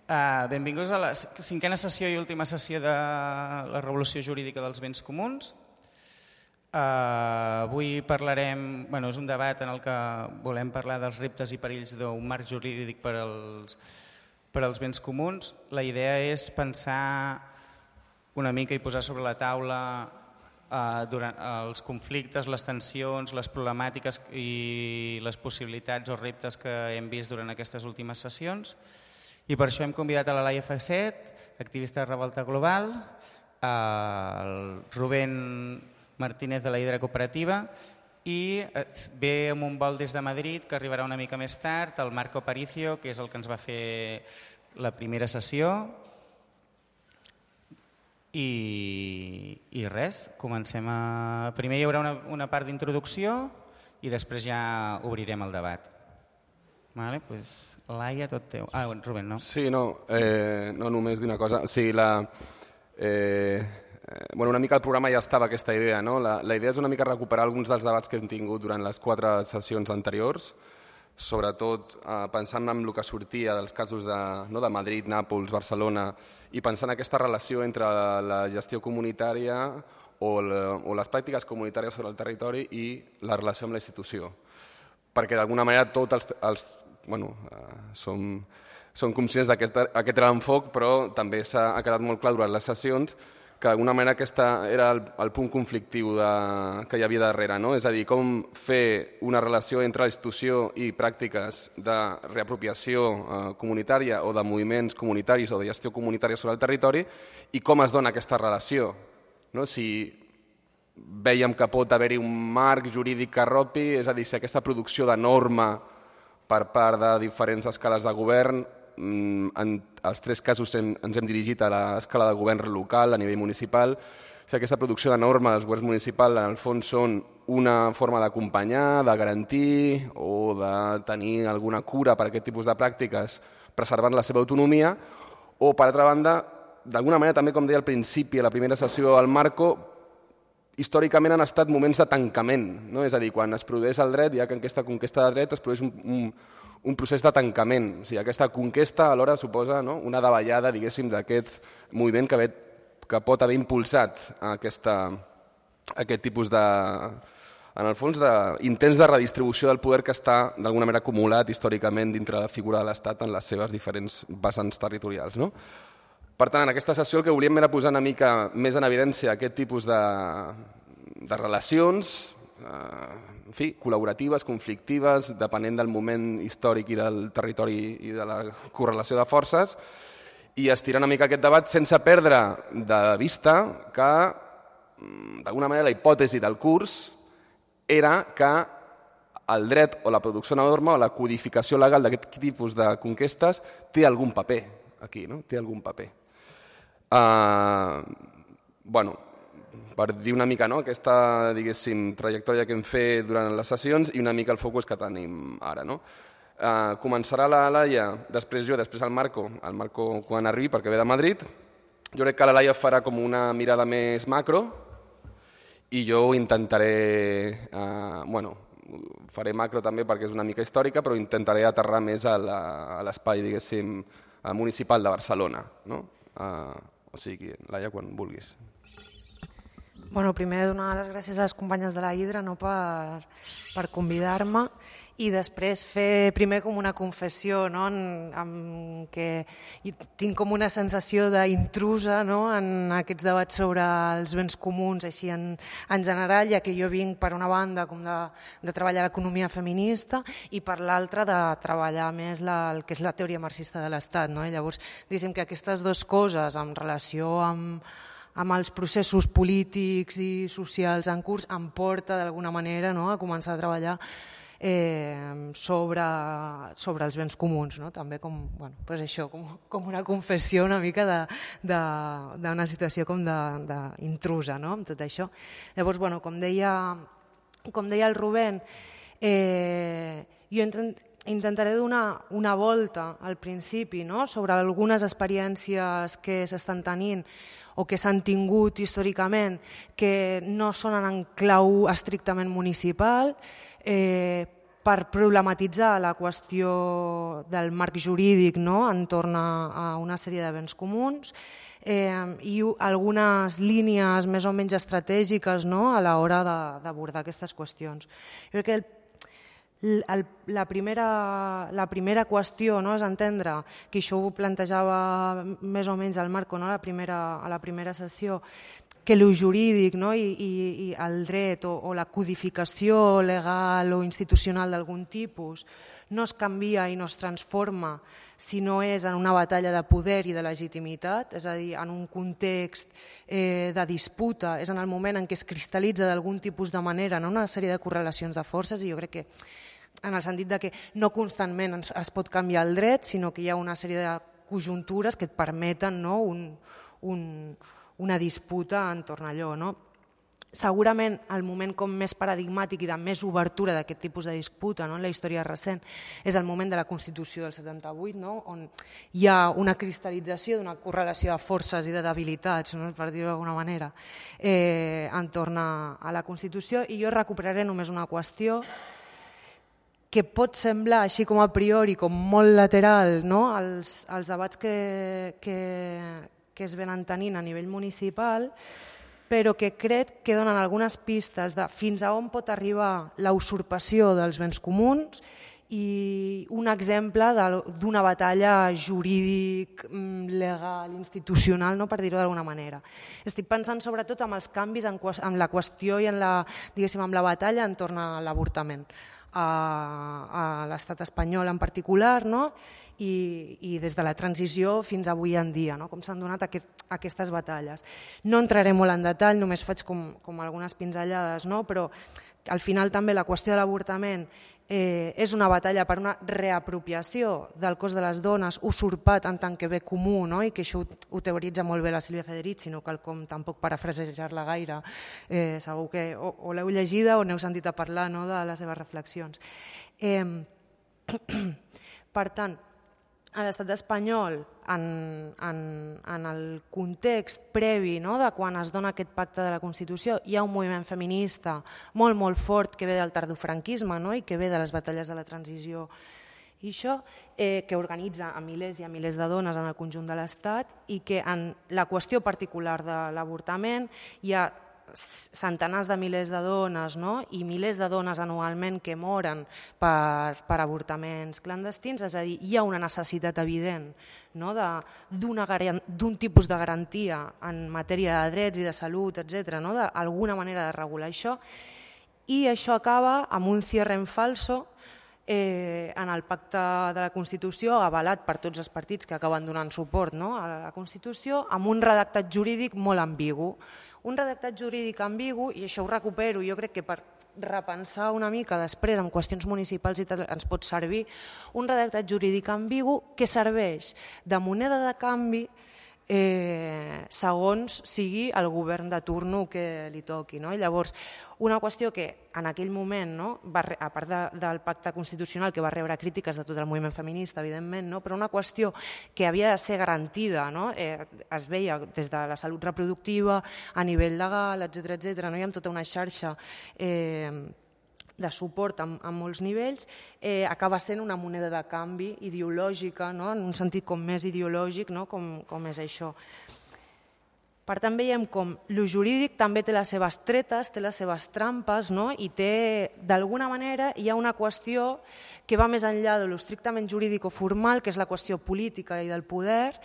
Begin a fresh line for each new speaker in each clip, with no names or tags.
Benvinguts a la cinquena sessió i última sessió de la Revolució Jurídica dels Béns Comuns. Avui parlarem, és un debat en el que volem parlar dels reptes i perills d'un marc jurídic per als béns comuns. La idea és pensar una mica i posar sobre la taula durant els conflictes, les tensions, les problemàtiques i les possibilitats o reptes que hem vist durant aquestes últimes sessions. I per això hem convidat a la Laia Facet, activista de Revolta Global, el Rubén Martínez de la Hidra Cooperativa i ve amb un vol des de Madrid que arribarà una mica més tard, el Marco Aparicio, que és el que ens va fer la primera sessió. I res, comencem a... Primer hi haurà una part d'introducció i després ja obrirem el debat. Vale, pues, Laia, tot teu. Rubén, no?
Sí, no només dir una cosa. Sí, una mica el programa ja estava aquesta idea, no? La idea és una mica recuperar alguns dels debats que hem tingut durant les 4 sessions anteriors, sobretot pensant en el que sortia dels casos de Madrid, Nàpols, Barcelona, i pensant en aquesta relació entre la gestió comunitària o les pràctiques comunitàries sobre el territori i la relació amb la institució. Perquè d'alguna manera tots som conscients d'aquest era l'enfoc, però també ha quedat molt clar durant les sessions que d'alguna manera aquest era el punt conflictiu que hi havia darrere, no? És a dir, com fer una relació entre la institució i pràctiques de reapropiació comunitària o de moviments comunitaris o de gestió comunitària sobre el territori i com es dona aquesta relació. Si vèiem que pot haver-hi un marc jurídic que arropi, és a dir, si aquesta producció de norma per part de diferents escales de govern, en els 3 casos ens hem dirigit a l'escala de govern local, a nivell municipal, si aquesta producció de norma dels governs municipals en el fons són una forma d'acompanyar, de garantir o de tenir alguna cura per a aquest tipus de pràctiques preservant la seva autonomia, o per altra banda, d'alguna manera també, com deia al principi, a la primera sessió al Marco, històricament han estat moments de tancament, no? És a dir, quan es produeix el dret, ja que en aquesta conquesta de dret es produeix un procés de tancament. O sigui, aquesta conquesta alhora suposa una davallada, diguéssim, d'aquest moviment que pot haver impulsat aquest tipus de, en el fons, d'intents de redistribució del poder que està d'alguna manera acumulat històricament dintre la figura de l'Estat en les seves diferents vessants territorials, no? Per tant, en aquesta sessió el que volíem era posar una mica més en evidència aquest tipus de relacions, col·laboratives, conflictives, depenent del moment històric i del territori i de la correlació de forces, i estirar una mica aquest debat sense perdre de vista que, d'alguna manera, la hipòtesi del curs era que el dret o la producció de norma o la codificació legal d'aquest tipus de conquestes té algun paper aquí, no? Té algun paper. Per dir una mica aquesta, diguéssim, trajectòria que hem fet durant les sessions i una mica el focus que tenim ara. Començarà la Laia, després jo, després el Marco quan arribi perquè ve de Madrid. Jo crec que la Laia farà com una mirada més macro i jo intentaré, faré macro també perquè és una mica històrica, però intentaré aterrar més a l'espai, diguéssim, municipal de Barcelona, no? O sigui, Laia, quan vulguis.
Primer donar les gràcies a les companyes de la Hidra per convidar-me i després fer primer com una confessió, en què tinc com una sensació d'intrusa en aquests debats sobre els béns comuns així en general, ja que jo vinc per una banda com de treballar l'economia feminista i per l'altra de treballar més el que és la teoria marxista de l'Estat. Llavors, diguéssim que aquestes dues coses en relació amb els processos polítics i socials en curs em porta d'alguna manera a començar a treballar sobre els béns comuns, també com una confessió una mica d'una situació com d'intrusa amb tot això. Llavors, com deia el Rubén, jo intentaré donar una volta al principi sobre algunes experiències que s'estan tenint o que s'han tingut històricament que no són en clau estrictament municipal, per problematitzar la qüestió del marc jurídic, no?, entorn a una sèrie de béns comuns, i algunes línies més o menys estratègiques, no?, a l'hora d'abordar aquestes qüestions. Jo crec que la primera qüestió, no?, és entendre, que això ho plantejava més o menys el Marco, no?, a la primera sessió, que el jurídic, no?, i el dret o la codificació legal o institucional d'algun tipus no es canvia i no es transforma si no és en una batalla de poder i de legitimitat, és a dir, en un context de disputa, és en el moment en què es cristal·litza d'algun tipus de manera, no?, una sèrie de correlacions de forces, i jo crec que en el sentit de que no constantment es pot canviar el dret, sinó que hi ha una sèrie de conjuntures que et permeten, no?, una disputa entorn a allò, no? Segurament el moment com més paradigmàtic i de més obertura d'aquest tipus de disputa, no?, en la història recent és el moment de la Constitució del 78, no?, on hi ha una cristal·lització d'una correlació de forces i de debilitats, no?, per dir-ho d'alguna manera, entorn a la Constitució. I jo recuperaré només una qüestió que pot semblar, així com a priori, com molt lateral, no?, als debats que es venen tenint a nivell municipal, però que crec que donen algunes pistes de fins a on pot arribar la usurpació dels béns comuns i un exemple d'una batalla jurídic, legal, institucional, no?, per dir-ho d'alguna manera. Estic pensant sobretot en els canvis en la qüestió i en la batalla entorn a l'avortament a l'estat espanyol en particular, no?, i des de la transició fins avui en dia, no?, com s'han donat aquestes batalles. No entraré molt en detall, només faig com algunes pinzellades, no?, però al final també la qüestió de l'avortament és una batalla per una reapropiació del cos de les dones usurpat en tant que bé comú, no?, i que això ho teoritza molt bé la Sílvia Federici, no cal com tampoc parafrasejar-la gaire, segur que o l'heu llegida o n'heu sentit a parlar, no?, de les seves reflexions. Per tant, a l'estat espanyol, en el context previ, no?, de quan es dona aquest pacte de la Constitució, hi ha un moviment feminista molt, molt fort que ve del tardofranquisme, no?, i que ve de les batalles de la transició, i això que organitza a milers i a milers de dones en el conjunt de l'Estat, i que en la qüestió particular de l'avortament hi ha centenars de milers de dones, no?, i milers de dones anualment que moren per avortaments clandestins, és a dir, hi ha una necessitat evident, no?, d'un tipus de garantia en matèria de drets i de salut, etc., no?, d'alguna manera de regular això, i això acaba amb un cierre en falso en el pacte de la Constitució, avalat per tots els partits que acaben donant suport, no?, a la Constitució, amb un redactat jurídic molt ambigu. Un redactat jurídic ambigu, i això ho recupero, jo crec que per repensar una mica després en qüestions municipals i tal ens pot servir, un redactat jurídic ambigu que serveix de moneda de canvi segons sigui el govern de turno que li toqui, no? I llavors, una qüestió que en aquell moment, no, a part del pacte constitucional que va rebre crítiques de tot el moviment feminista, evidentment, no, però una qüestió que havia de ser garantida, no, es veia des de la salut reproductiva, a nivell legal, etc., no, hi ha tota una xarxa de suport en molts nivells, acaba sent una moneda de canvi ideològica, no? En un sentit com més ideològic, no? Com és això. Per tant, veiem com el jurídic també té les seves tretes, té les seves trampes, no? I té, d'alguna manera, hi ha una qüestió que va més enllà de l'estrictament jurídic o formal, que és la qüestió política i del poder,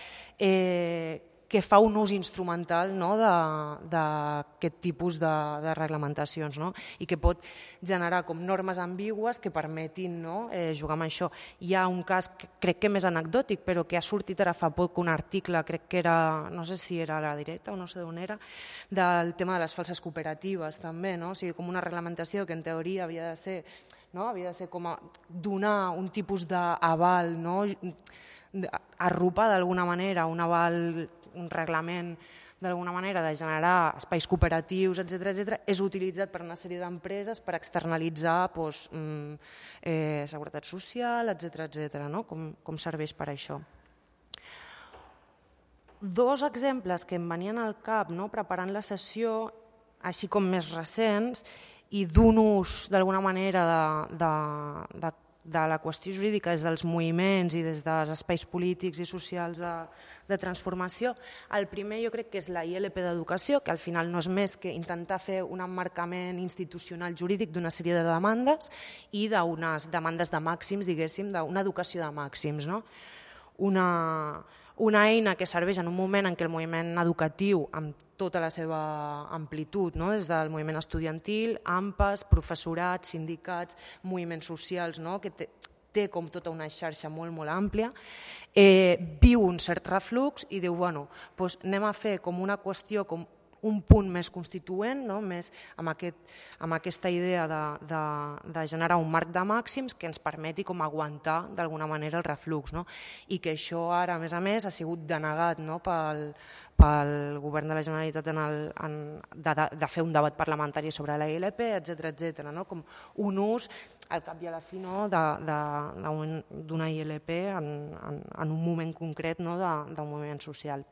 que fa un ús instrumental, no, d'aquest tipus de reglamentacions, no? I que pot generar com normes ambigües que permetin, no, jugar amb això. Hi ha un cas, crec que més anecdòtic, però que ha sortit ara fa poc un article, crec que era, no sé si era a La Directa o no sé d'on era, del tema de les falses cooperatives també, no? O sigui, com una reglamentació que en teoria havia de ser, no? Havia de ser com a donar un tipus d'aval, no? Arropar d'alguna manera un aval, un reglament d'alguna manera de generar espais cooperatius, etc., és utilitzat per una sèrie d'empreses per externalitzar seguretat social, etc., no? Com serveix per això. Dos exemples que em venien al cap, no, preparant la sessió, així com més recents, i d'un ús d'alguna manera de la qüestió jurídica des dels moviments i des dels espais polítics i socials de transformació. El primer jo crec que és la ILP d'educació, que al final no és més que intentar fer un emmarcament institucional jurídic d'una sèrie de demandes i d'unes demandes de màxims, diguéssim, d'una educació de màxims, no? Una eina que serveix en un moment en què el moviment educatiu, amb tota la seva amplitud, no? Des del moviment estudiantil, AMPAs, professorat, sindicats, moviments socials, no? Que té com tota una xarxa molt, molt àmplia, viu un cert reflux i diu, bueno, doncs anem a fer com una qüestió, com un punt més constituent, no? Més amb aquesta idea de generar un marc de màxims que ens permeti com aguantar d'alguna manera el reflux, no? I que això ara, a més, ha sigut denegat, no? pel govern de la Generalitat de fer un debat parlamentari sobre la ILP, etc., no? Com un ús, al cap i a la fi, no? d'una ILP en un moment concret, no? d'un moviment social.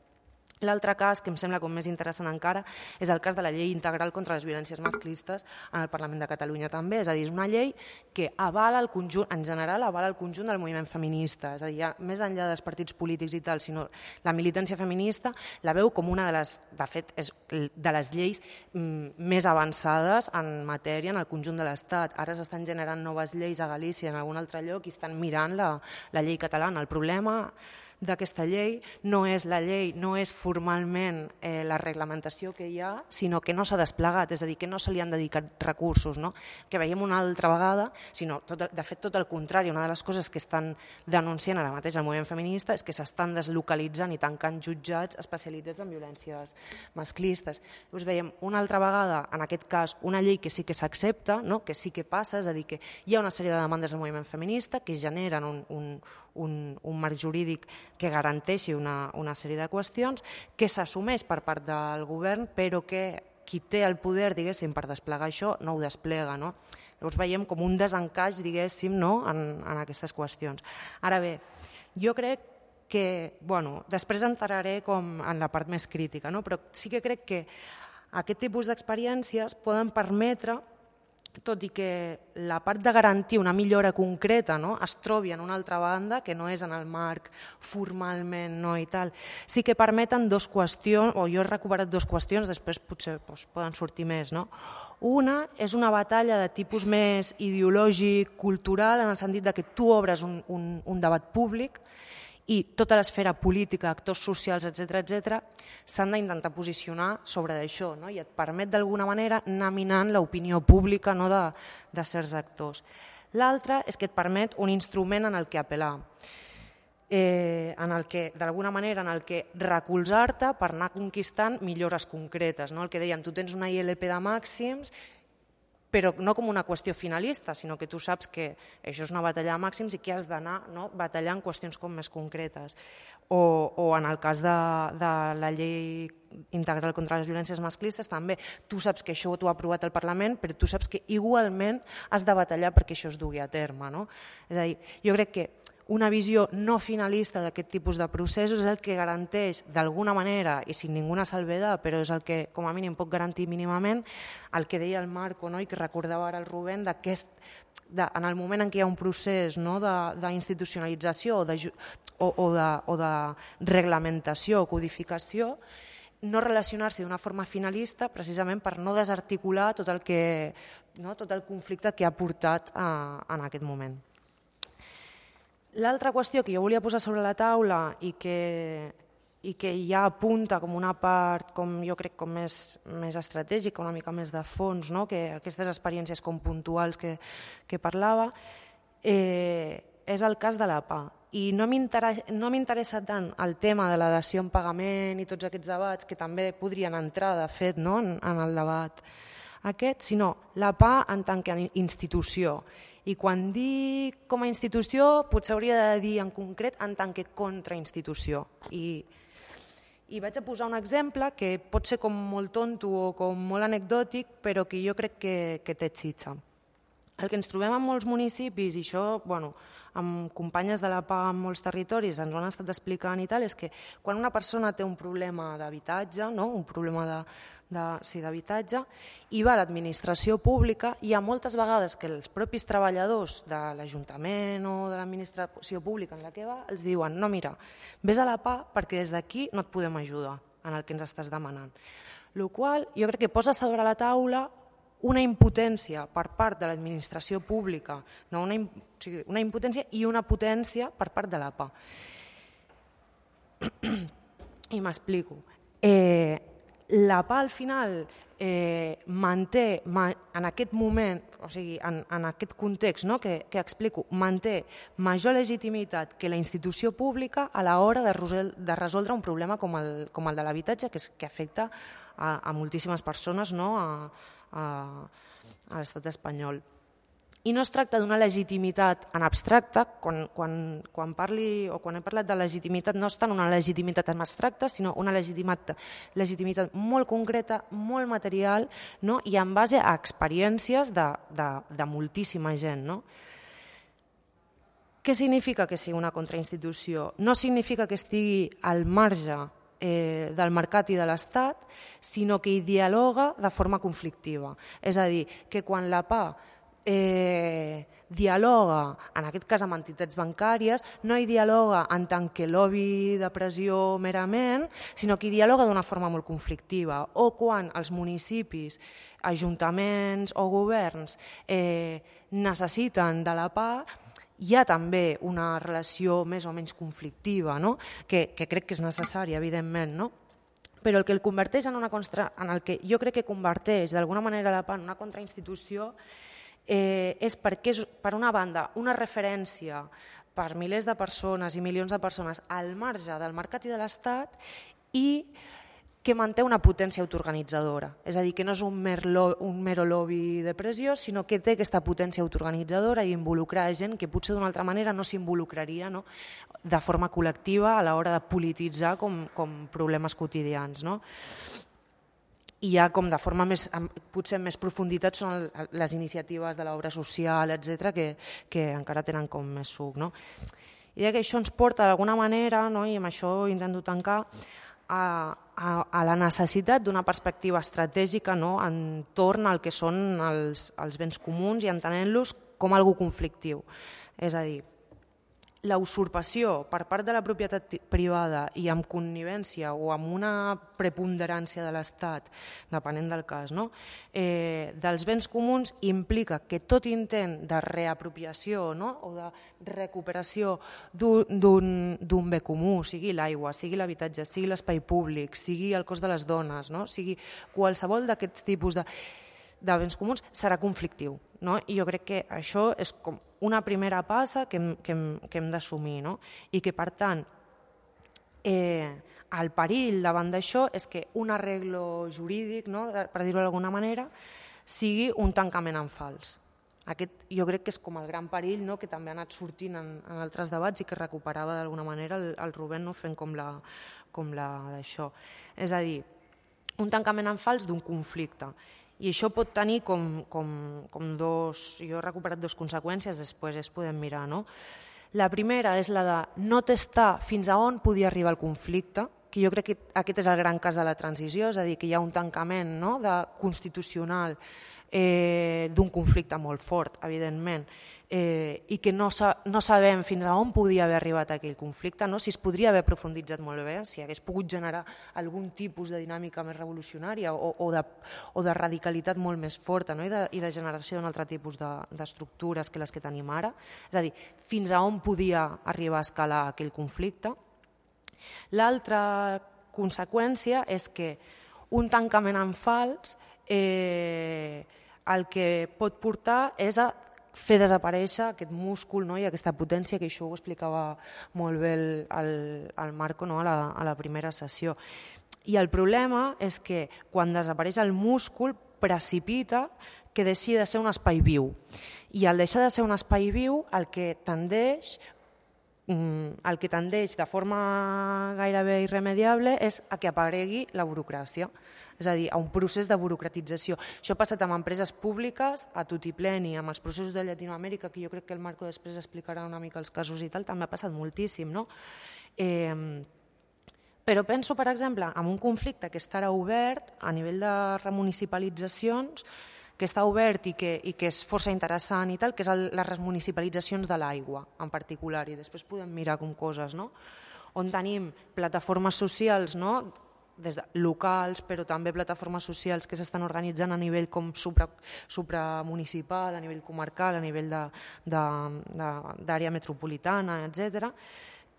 L'altre cas, que em sembla com més interessant encara, és el cas de la llei integral contra les violències masclistes en el Parlament de Catalunya també. És a dir, és una llei que avala el conjunt, en general avala el conjunt del moviment feminista. És a dir, ja més enllà dels partits polítics i tal, sinó la militància feminista la veu com una de les, de fet, és de les lleis més avançades en matèria en el conjunt de l'Estat. Ara s'estan generant noves lleis a Galícia, en algun altre lloc, i estan mirant la llei catalana. El problema d'aquesta llei no és la llei, no és formalment la reglamentació que hi ha, sinó que no s'ha desplegat, és a dir, que no se li han dedicat recursos, no? Que veiem una altra vegada, sinó, de fet, tot el contrari. Una de les coses que estan denunciant ara mateix el moviment feminista és que s'estan deslocalitzant i tancant jutjats especialitzats en violències masclistes. Llavors veiem una altra vegada, en aquest cas, una llei que sí que s'accepta, no? Que sí que passa, és a dir, que hi ha una sèrie de demandes del moviment feminista que generen un marc jurídic que garanteixi una sèrie de qüestions, que s'assumeix per part del govern, però que qui té el poder, diguéssim, per desplegar això no ho desplega, no? Llavors veiem com un desencaix, diguéssim, no? en aquestes qüestions. Ara bé, jo crec que, bueno, després entraré com en la part més crítica, no? Però sí que crec que aquest tipus d'experiències poden permetre, tot i que la part de garantir una millora concreta, no? Es trobi en una altra banda, que no és en el marc formalment, no, i tal, sí que permeten dues qüestions, o jo he recuperat dues qüestions, després potser poden sortir més, no? Una és una batalla de tipus més ideològic, cultural, en el sentit que tu obres un debat públic i tota l'esfera política, actors socials, etc., s'han d'intentar posicionar sobre això, no? I et permet d'alguna manera anar minant l'opinió pública, no? de certs actors. L'altra és que et permet un instrument en el que apel·lar, d'alguna manera en el que recolzar-te per anar conquistant millores concretes, no? El que dèiem, tu tens una ILP de màxims, però no com una qüestió finalista, sinó que tu saps que això és una batalla de màxims i que has d'anar, no? Batallant qüestions com més concretes. O en el cas de la llei integral contra les violències masclistes també, tu saps que això t'ho ha aprovat el Parlament, però tu saps que igualment has de batallar perquè això es dugui a terme, no? És a dir, jo crec que una visió no finalista d'aquest tipus de processos és el que garanteix d'alguna manera, i sin ninguna salvedad, però és el que com a mínim pot garantir mínimament el que deia el Marco, no? I que recordava ara el Rubén, en el moment en què hi ha un procés, no? d'institucionalització o de reglamentació o codificació, no relacionar-se d'una forma finalista precisament per no desarticular tot el conflicte que ha portat en aquest moment. L'altra qüestió que jo volia posar sobre la taula i que ja apunta com una part, com jo crec, com més estratègica, una mica més de fons, no? Que aquestes experiències com puntuals que parlava, és el cas de la PA. I no m'interessa tant el tema de la dació en pagament i tots aquests debats, que també podrien entrar, de fet, no? en el debat aquest, sinó la PA en tant que institució. I quan dic com a institució, potser hauria de dir en concret en tant que contrainstitució. I vaig a posar un exemple que pot ser com molt tonto o com molt anecdòtic, però que jo crec que té xitxa. El que ens trobem en molts municipis, i això amb companyes de la PA en molts territoris ens ho han estat explicant i tal, és que quan una persona té un problema d'habitatge, un problema d'habitatge, i va a l'administració pública, hi ha moltes vegades que els propis treballadors de l'Ajuntament o de l'administració pública en la que va els diuen no, mira, vés a la PA perquè des d'aquí no et podem ajudar en el que ens estàs demanant. El qual jo crec que posa sobre la taula una impotència per part de l'administració pública, una impotència i una potència per part de l'APA. I m'explico. L'APA al final manté en aquest moment, o sigui, en aquest context que explico, manté major legitimitat que la institució pública a l'hora de resoldre un problema com el de l'habitatge que afecta a moltíssimes persones a l'estat espanyol. I no es tracta d'una legitimitat en abstracte, quan he parlat de legitimitat no és tant una legitimitat en abstracte, sinó una legitimitat molt concreta, molt material, i en base a experiències de moltíssima gent. Què significa que sigui una contrainstitució? No significa que estigui al marge del mercat i de l'Estat, sinó que hi dialoga de forma conflictiva. És a dir, que quan la PA dialoga, en aquest cas amb entitats bancàries, no hi dialoga en tant que lobby de pressió merament, sinó que hi dialoga d'una forma molt conflictiva. O quan els municipis, ajuntaments o governs necessiten de la PA, hi ha també una relació més o menys conflictiva, que crec que és necessària, evidentment, però el que el converteix en el que jo crec que converteix d'alguna manera la PA en una contrainstitució és perquè és, per una banda, una referència per milers de persones i milions de persones al marge del mercat i de l'Estat i que manté una potència autoorganitzadora. És a dir, que no és un mero lobby de pressió, sinó que té aquesta potència autoorganitzadora i involucrar gent que potser d'una altra manera no s'involucraria de forma col·lectiva a l'hora de polititzar com problemes quotidians. I ja com de forma potser més profunditat són les iniciatives de l'obra social, etc., que encara tenen com més suc. I que això ens porta d'alguna manera, i amb això intento tancar, a la necessitat d'una perspectiva estratègica entorn al que són els béns comuns i entenent-los com algo conflictiu. És a dir, la usurpació per part de la propietat privada i amb connivència o amb una preponderància de l'Estat, depenent del cas, dels béns comuns implica que tot intent de reapropiació o de recuperació d'un bé comú, sigui l'aigua, sigui l'habitatge, sigui l'espai públic, sigui el cos de les dones, sigui qualsevol d'aquests tipus de béns comuns, serà conflictiu. I jo crec que això és com una primera passa que hem d'assumir i que, per tant, el perill davant d'això és que un arreglo jurídic, per dir-ho d'alguna manera, sigui un tancament en fals. Aquest jo crec que és com el gran perill que també ha anat sortint en altres debats i que recuperava d'alguna manera el Rubén fent com la d'això. És a dir, un tancament en fals d'un conflicte. I això pot tenir com dos... Jo he recuperat dues conseqüències, després es podem mirar. La primera és la de no testar fins a on podia arribar el conflicte, que jo crec que aquest és el gran cas de la transició, és a dir, que hi ha un tancament constitucional d'un conflicte molt fort, evidentment, i que no sabem fins a on podia haver arribat aquell conflicte, si es podria haver profunditzat molt bé, si hagués pogut generar algun tipus de dinàmica més revolucionària o de radicalitat molt més forta i de generació d'un altre tipus d'estructures que les que tenim ara. És a dir, fins a on podia arribar a escalar aquell conflicte. L'altra conseqüència és que un tancament en fals el que pot portar és a fer desaparèixer aquest múscul i aquesta potència, que això ho explicava molt bé el Marco a la primera sessió. I el problema és que quan desapareix el múscul precipita que deixi de ser un espai viu. I al deixar de ser un espai viu el que tendeix el que tendeix de forma gairebé irremediable és a que aparegui la burocràcia, és a dir, a un procés de burocratització. Això ha passat amb empreses públiques, a tutipleni, amb els processos de Llatinoamèrica, que jo crec que el Marco després explicarà una mica els casos i tal, també ha passat moltíssim, no? Però penso, per exemple, en un conflicte que estarà obert a nivell de remunicipalitzacions, que està obert i que és força interessant i tal, que és les remunicipalitzacions de l'aigua en particular, i després podem mirar com coses, no? On tenim plataformes socials, no? Des de locals, però també plataformes socials que s'estan organitzant a nivell com supramunicipal, a nivell comarcal, a nivell d'àrea metropolitana, etc.,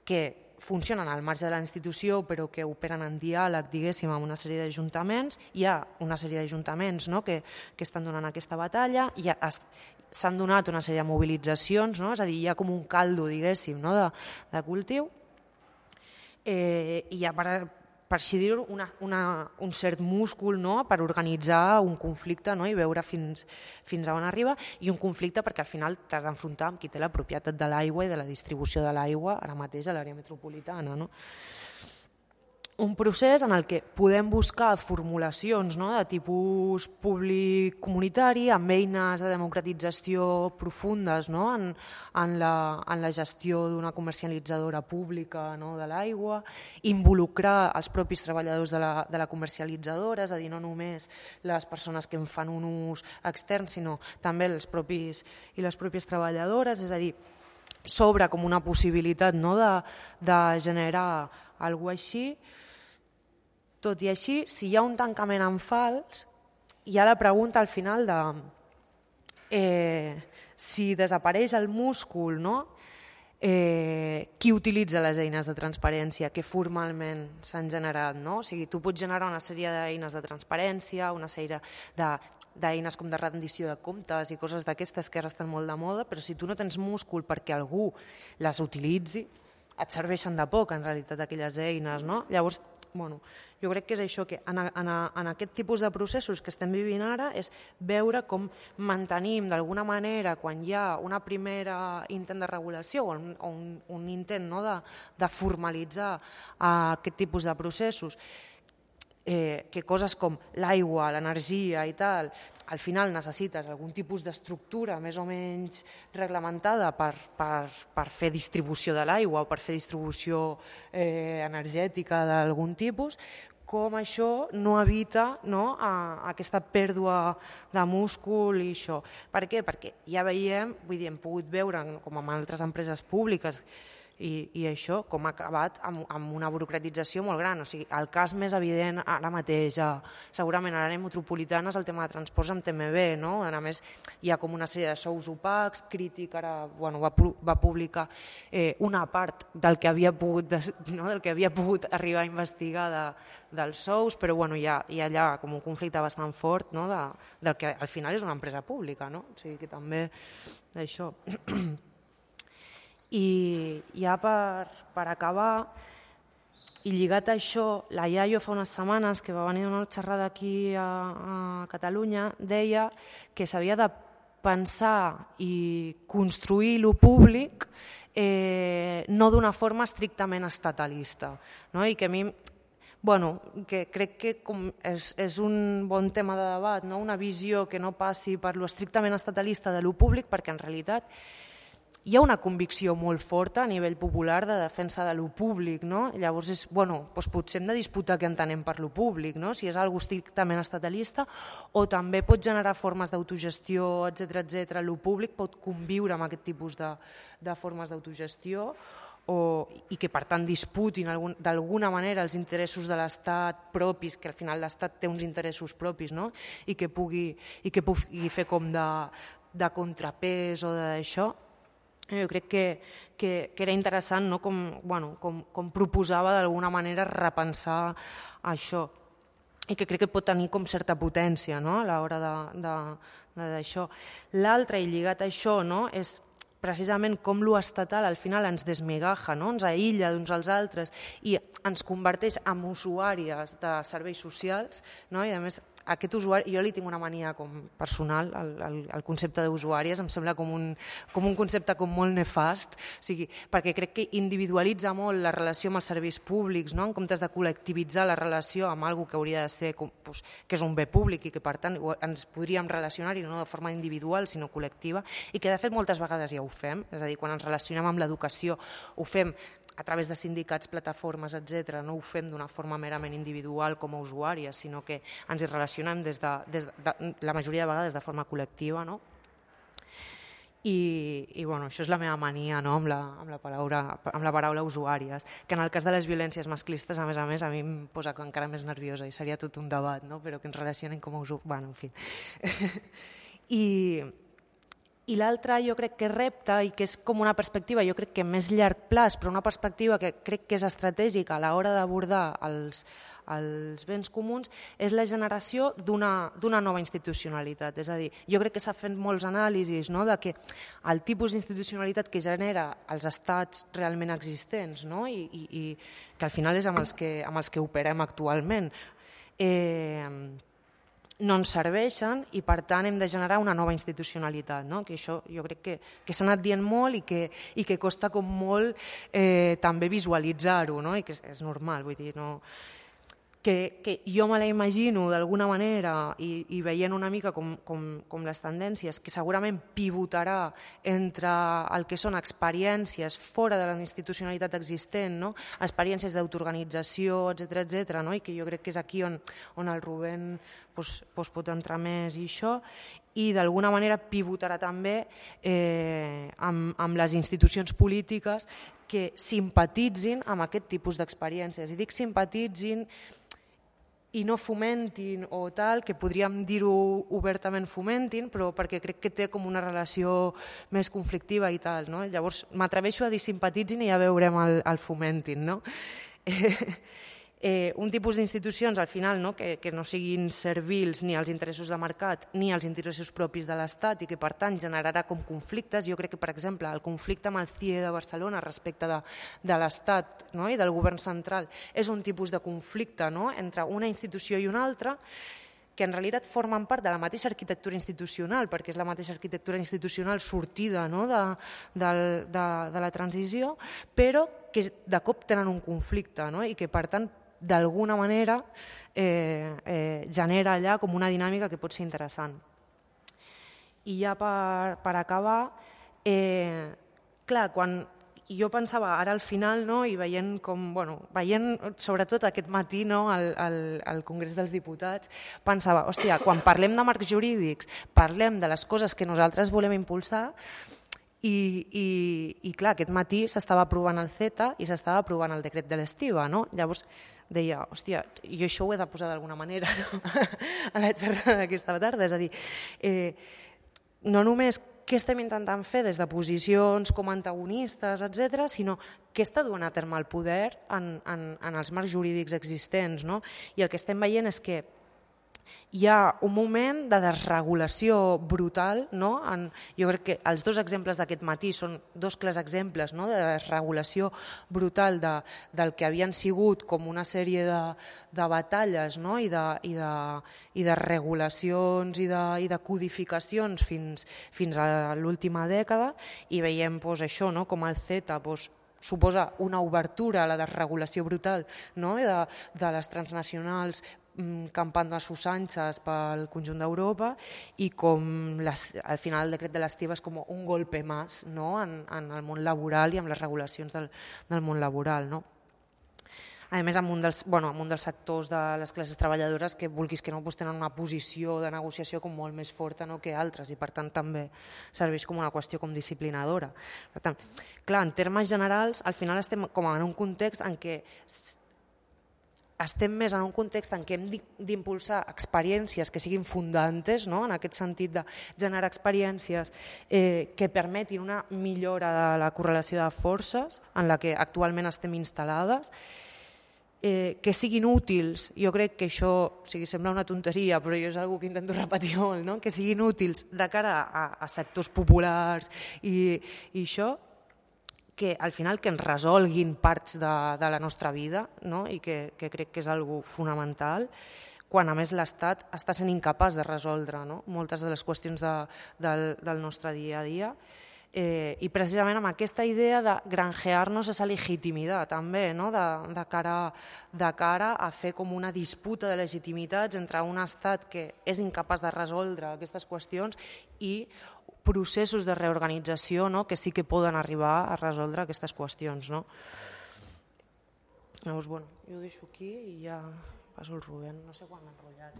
que funcionen al marge de la institució però que operen en diàleg, diguéssim, amb una sèrie d'ajuntaments. Hi ha una sèrie d'ajuntaments, no?, que estan donant aquesta batalla, s'han donat una sèrie de mobilitzacions, no?, és a dir, hi ha com un caldo, diguéssim, no?, de cultiu, i hi ha, per així dir-ho, un cert múscul, no?, per organitzar un conflicte, no?, i veure fins a on arriba, i un conflicte perquè al final t'has d'enfrontar amb qui té la propietat de l'aigua i de la distribució de l'aigua ara mateix a l'àrea metropolitana, no? Un procés en el que podem buscar formulacions, no?, de tipus públic-comunitari, amb eines de democratització profundes, no?, en la gestió d'una comercialitzadora pública, no?, de l'aigua, involucrar els propis treballadors de la comercialitzadora, és a dir, no només les persones que en fan un ús extern, sinó també els propis i les pròpies treballadores, és a dir, s'obre com una possibilitat, no?, de generar alguna cosa així. Tot i així, si hi ha un tancament en fals, hi ha la pregunta al final de si desapareix el múscul, no?, qui utilitza les eines de transparència que formalment s'han generat, no? O sigui, tu pots generar una sèrie d'eines de transparència, una sèrie d'eines com de rendició de comptes i coses d'aquestes que ara estan molt de moda, però si tu no tens múscul perquè algú les utilitzi, et serveixen de poc, en realitat, aquelles eines, no? Llavors, jo crec que és això, que en aquest tipus de processos que estem vivint ara és veure com mantenim d'alguna manera, quan hi ha una primera intent de regulació o un intent, no?, de formalitzar aquest tipus de processos, que coses com l'aigua, l'energia i tal, al final necessites algun tipus d'estructura més o menys reglamentada per fer distribució de l'aigua o per fer distribució energètica d'algun tipus, com això no evita, no?, aquesta pèrdua de múscul i això. Per què? Perquè ja veiem, vull dir, hem pogut veure, com amb altres empreses públiques, i això com ha acabat amb una burocratització molt gran. O sigui, el cas més evident ara mateix, segurament a l'àrea metropolitana, és el tema de transports amb TMB, no? A més, hi ha com una sèrie de sous opacs, Crític ara va publicar una part del que havia pogut arribar a investigar dels sous, però hi ha allà com un conflicte bastant fort, no?, del que al final és una empresa pública, no? O sigui que també això. I ja per acabar, i lligat a això, la Iaio fa unes setmanes que va venir a una xerrada aquí a Catalunya, deia que s'havia de pensar i construir lo públic no d'una forma estrictament estatalista, no? I que a mi, que crec que és un bon tema de debat, no? Una visió que no passi per lo estrictament estatalista de lo públic, perquè en realitat hi ha una convicció molt forta a nivell popular de defensa de lo públic, no? Llavors, potser hem de disputar què entenem per lo públic, no? Si és algo estrictament estatalista o també pot generar formes d'autogestió, etc. Lo públic pot conviure amb aquest tipus de formes d'autogestió i que, per tant, disputin d'alguna manera els interessos de l'Estat propis, que al final l'Estat té uns interessos propis, no? I que pugui fer com de contrapès o d'això. Jo crec que era interessant, no?, com proposava d'alguna manera repensar això, i que crec que pot tenir com certa potència, no?, a l'hora d'això. L'altre, i lligat a això, no?, és precisament com lo estatal al final ens desmigaja, no?, ens aïlla d'uns als altres i ens converteix en usuàries de serveis socials, no?, i a més aquest usuari, jo li tinc una mania com personal, el concepte d'usuàries em sembla com un concepte com molt nefast, o sigui, perquè crec que individualitza molt la relació amb els serveis públics, no? En comptes de col·lectivitzar la relació amb alguna que hauria de ser, que és un bé públic i que per tant ens podríem relacionar-hi no de forma individual sinó col·lectiva, i que de fet moltes vegades ja ho fem, és a dir, quan ens relacionem amb l'educació ho fem a través de sindicats, plataformes, etc. No ho fem d'una forma merament individual com a usuàries, sinó que ens hi relacionem la majoria de vegades de forma col·lectiva, no? I bueno, això és la meva mania, no? amb la paraula usuàries, que en el cas de les violències masclistes, a més, a mi em posa encara més nerviosa i seria tot un debat, no? Però que ens relacionen com a usuàries. Bueno, en fi. I l'altre jo crec que repte, i que és com una perspectiva jo crec que més llarg plaç, però una perspectiva que crec que és estratègica a l'hora d'abordar els béns comuns, és la generació d'una nova institucionalitat. És a dir, jo crec que s'ha fet molts anàlisis no? De que el tipus d'institucionalitat que genera els estats realment existents, no? I que al final és amb els que operem actualment, no ens serveixen i per tant hem de generar una nova institucionalitat, no? Que això jo crec que s'ha anat dient molt i que costa com molt també visualitzar-ho, no? I que és normal, vull dir, no... que jo me la imagino d'alguna manera i veient una mica com les tendències, que segurament pivotarà entre el que són experiències fora de la institucionalitat existent, no? Experiències d'autoorganització, etc., no? I que jo crec que és aquí on el Rubén pot entrar més i això, i d'alguna manera pivotarà també amb les institucions polítiques que simpatitzin amb aquest tipus d'experiències. I dic simpatitzin i no fomentin o tal, que podríem dir-ho obertament fomentin, però perquè crec que té com una relació més conflictiva i tal, no? Llavors m'atreveixo a dir simpatitzin i ja veurem el fomentin, no? Un tipus d'institucions al final no? Que no siguin servils ni als interessos de mercat ni als interessos propis de l'Estat i que per tant generarà com conflictes. Jo crec que per exemple el conflicte amb el CIE de Barcelona respecte de l'Estat no? I del govern central és un tipus de conflicte no? Entre una institució i una altra que en realitat formen part de la mateixa arquitectura institucional, perquè és la mateixa arquitectura institucional sortida no? de la transició, però que de cop tenen un conflicte no? I que per tant d'alguna manera genera allà com una dinàmica que pot ser interessant. I ja per acabar, clar, quan jo pensava ara al final no, i veient sobretot aquest matí no, al Congrés dels Diputats, pensava, hòstia, quan parlem de marcs jurídics, parlem de les coses que nosaltres volem impulsar i clar, aquest matí s'estava aprovant el CETA i s'estava aprovant el decret de l'estiva, no? Llavors deia, hòstia, jo això ho he de posar d'alguna manera no? A la xerrada d'aquesta tarda, és a dir, no només què estem intentant fer des de posicions com antagonistes, etc., sinó què està duent a terme el poder en els marcs jurídics existents. No? I el que estem veient és que hi ha un moment de desregulació brutal, no? Jo crec que els dos exemples d'aquest matí són dos clars exemples no? De desregulació brutal del que havien sigut com una sèrie de batalles no? I de regulacions i de codificacions fins a l'última dècada i veiem això, no? Com el CETA suposa una obertura a la desregulació brutal no? De les transnacionals campant a sus anchas pel conjunt d'Europa i com al final el decret de l'estiva és com un golpe més no? en el món laboral i amb les regulacions del món laboral. No? A més, amb un dels sectors de les classes treballadores que vulguis que no tenen una posició de negociació com molt més forta no? Que altres i per tant també serveix com una qüestió com disciplinadora. Per tant, clar, en termes generals, al final estem com en un context en què estem més en un context en què hem d'impulsar experiències que siguin fundantes, no? En aquest sentit de generar experiències que permetin una millora de la correlació de forces en la que actualment estem instal·lades, que siguin útils, jo crec que això sembla una tonteria, però jo és una cosa que intento repetir molt, no? Que siguin útils de cara a sectors populars i això, que al final que ens resolguin parts de la nostra vida no? I que crec que és algo fonamental quan a més l'Estat està sent incapaç de resoldre, no? Moltes de les qüestions del nostre dia a dia. I precisament amb aquesta idea de granjear-nos esa legitimitat també, no? de cara a fer com una disputa de legitimitats entre un estat que és incapaç de resoldre aquestes qüestions i processos de reorganització, no? Que sí que poden arribar a resoldre aquestes qüestions. No? Llavors, bueno, jo ho deixo aquí i ja passo el Rubén. No sé quan m'he enrotllat.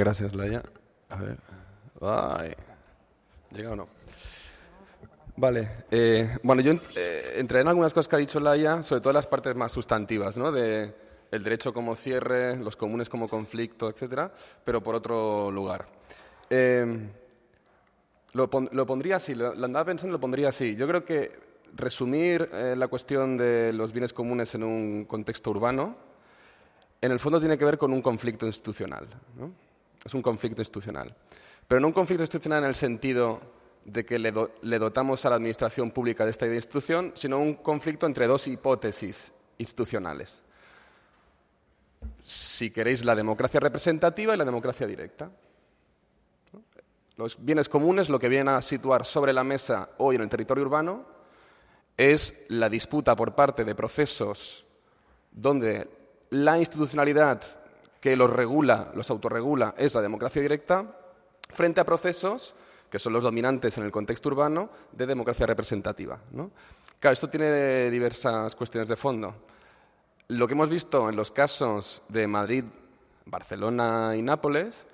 Gràcies, Laia. A ver. Ay. ¿Llega o no? Vale. Bueno, yo entraré en algunas cosas que ha dicho Laia, sobre todo las partes más sustantivas, ¿no? De el derecho como cierre, los comunes como conflicto, etcétera, pero por otro lugar. Lo pondría así, lo andaba pensando, lo pondría así. Yo creo que resumir la cuestión de los bienes comunes en un contexto urbano, en el fondo tiene que ver con un conflicto institucional, ¿no? Es un conflicto institucional. Pero no un conflicto institucional en el sentido de que le dotamos a la administración pública de esta institución, sino un conflicto entre dos hipótesis institucionales. Si queréis, la democracia representativa y la democracia directa. Los bienes comunes, lo que vienen a situar sobre la mesa hoy en el territorio urbano, es la disputa por parte de procesos donde la institucionalidad que los regula, los autorregula, es la democracia directa, frente a procesos que son los dominantes en el contexto urbano de democracia representativa, ¿no? Claro, esto tiene diversas cuestiones de fondo. Lo que hemos visto en los casos de Madrid, Barcelona y Nápoles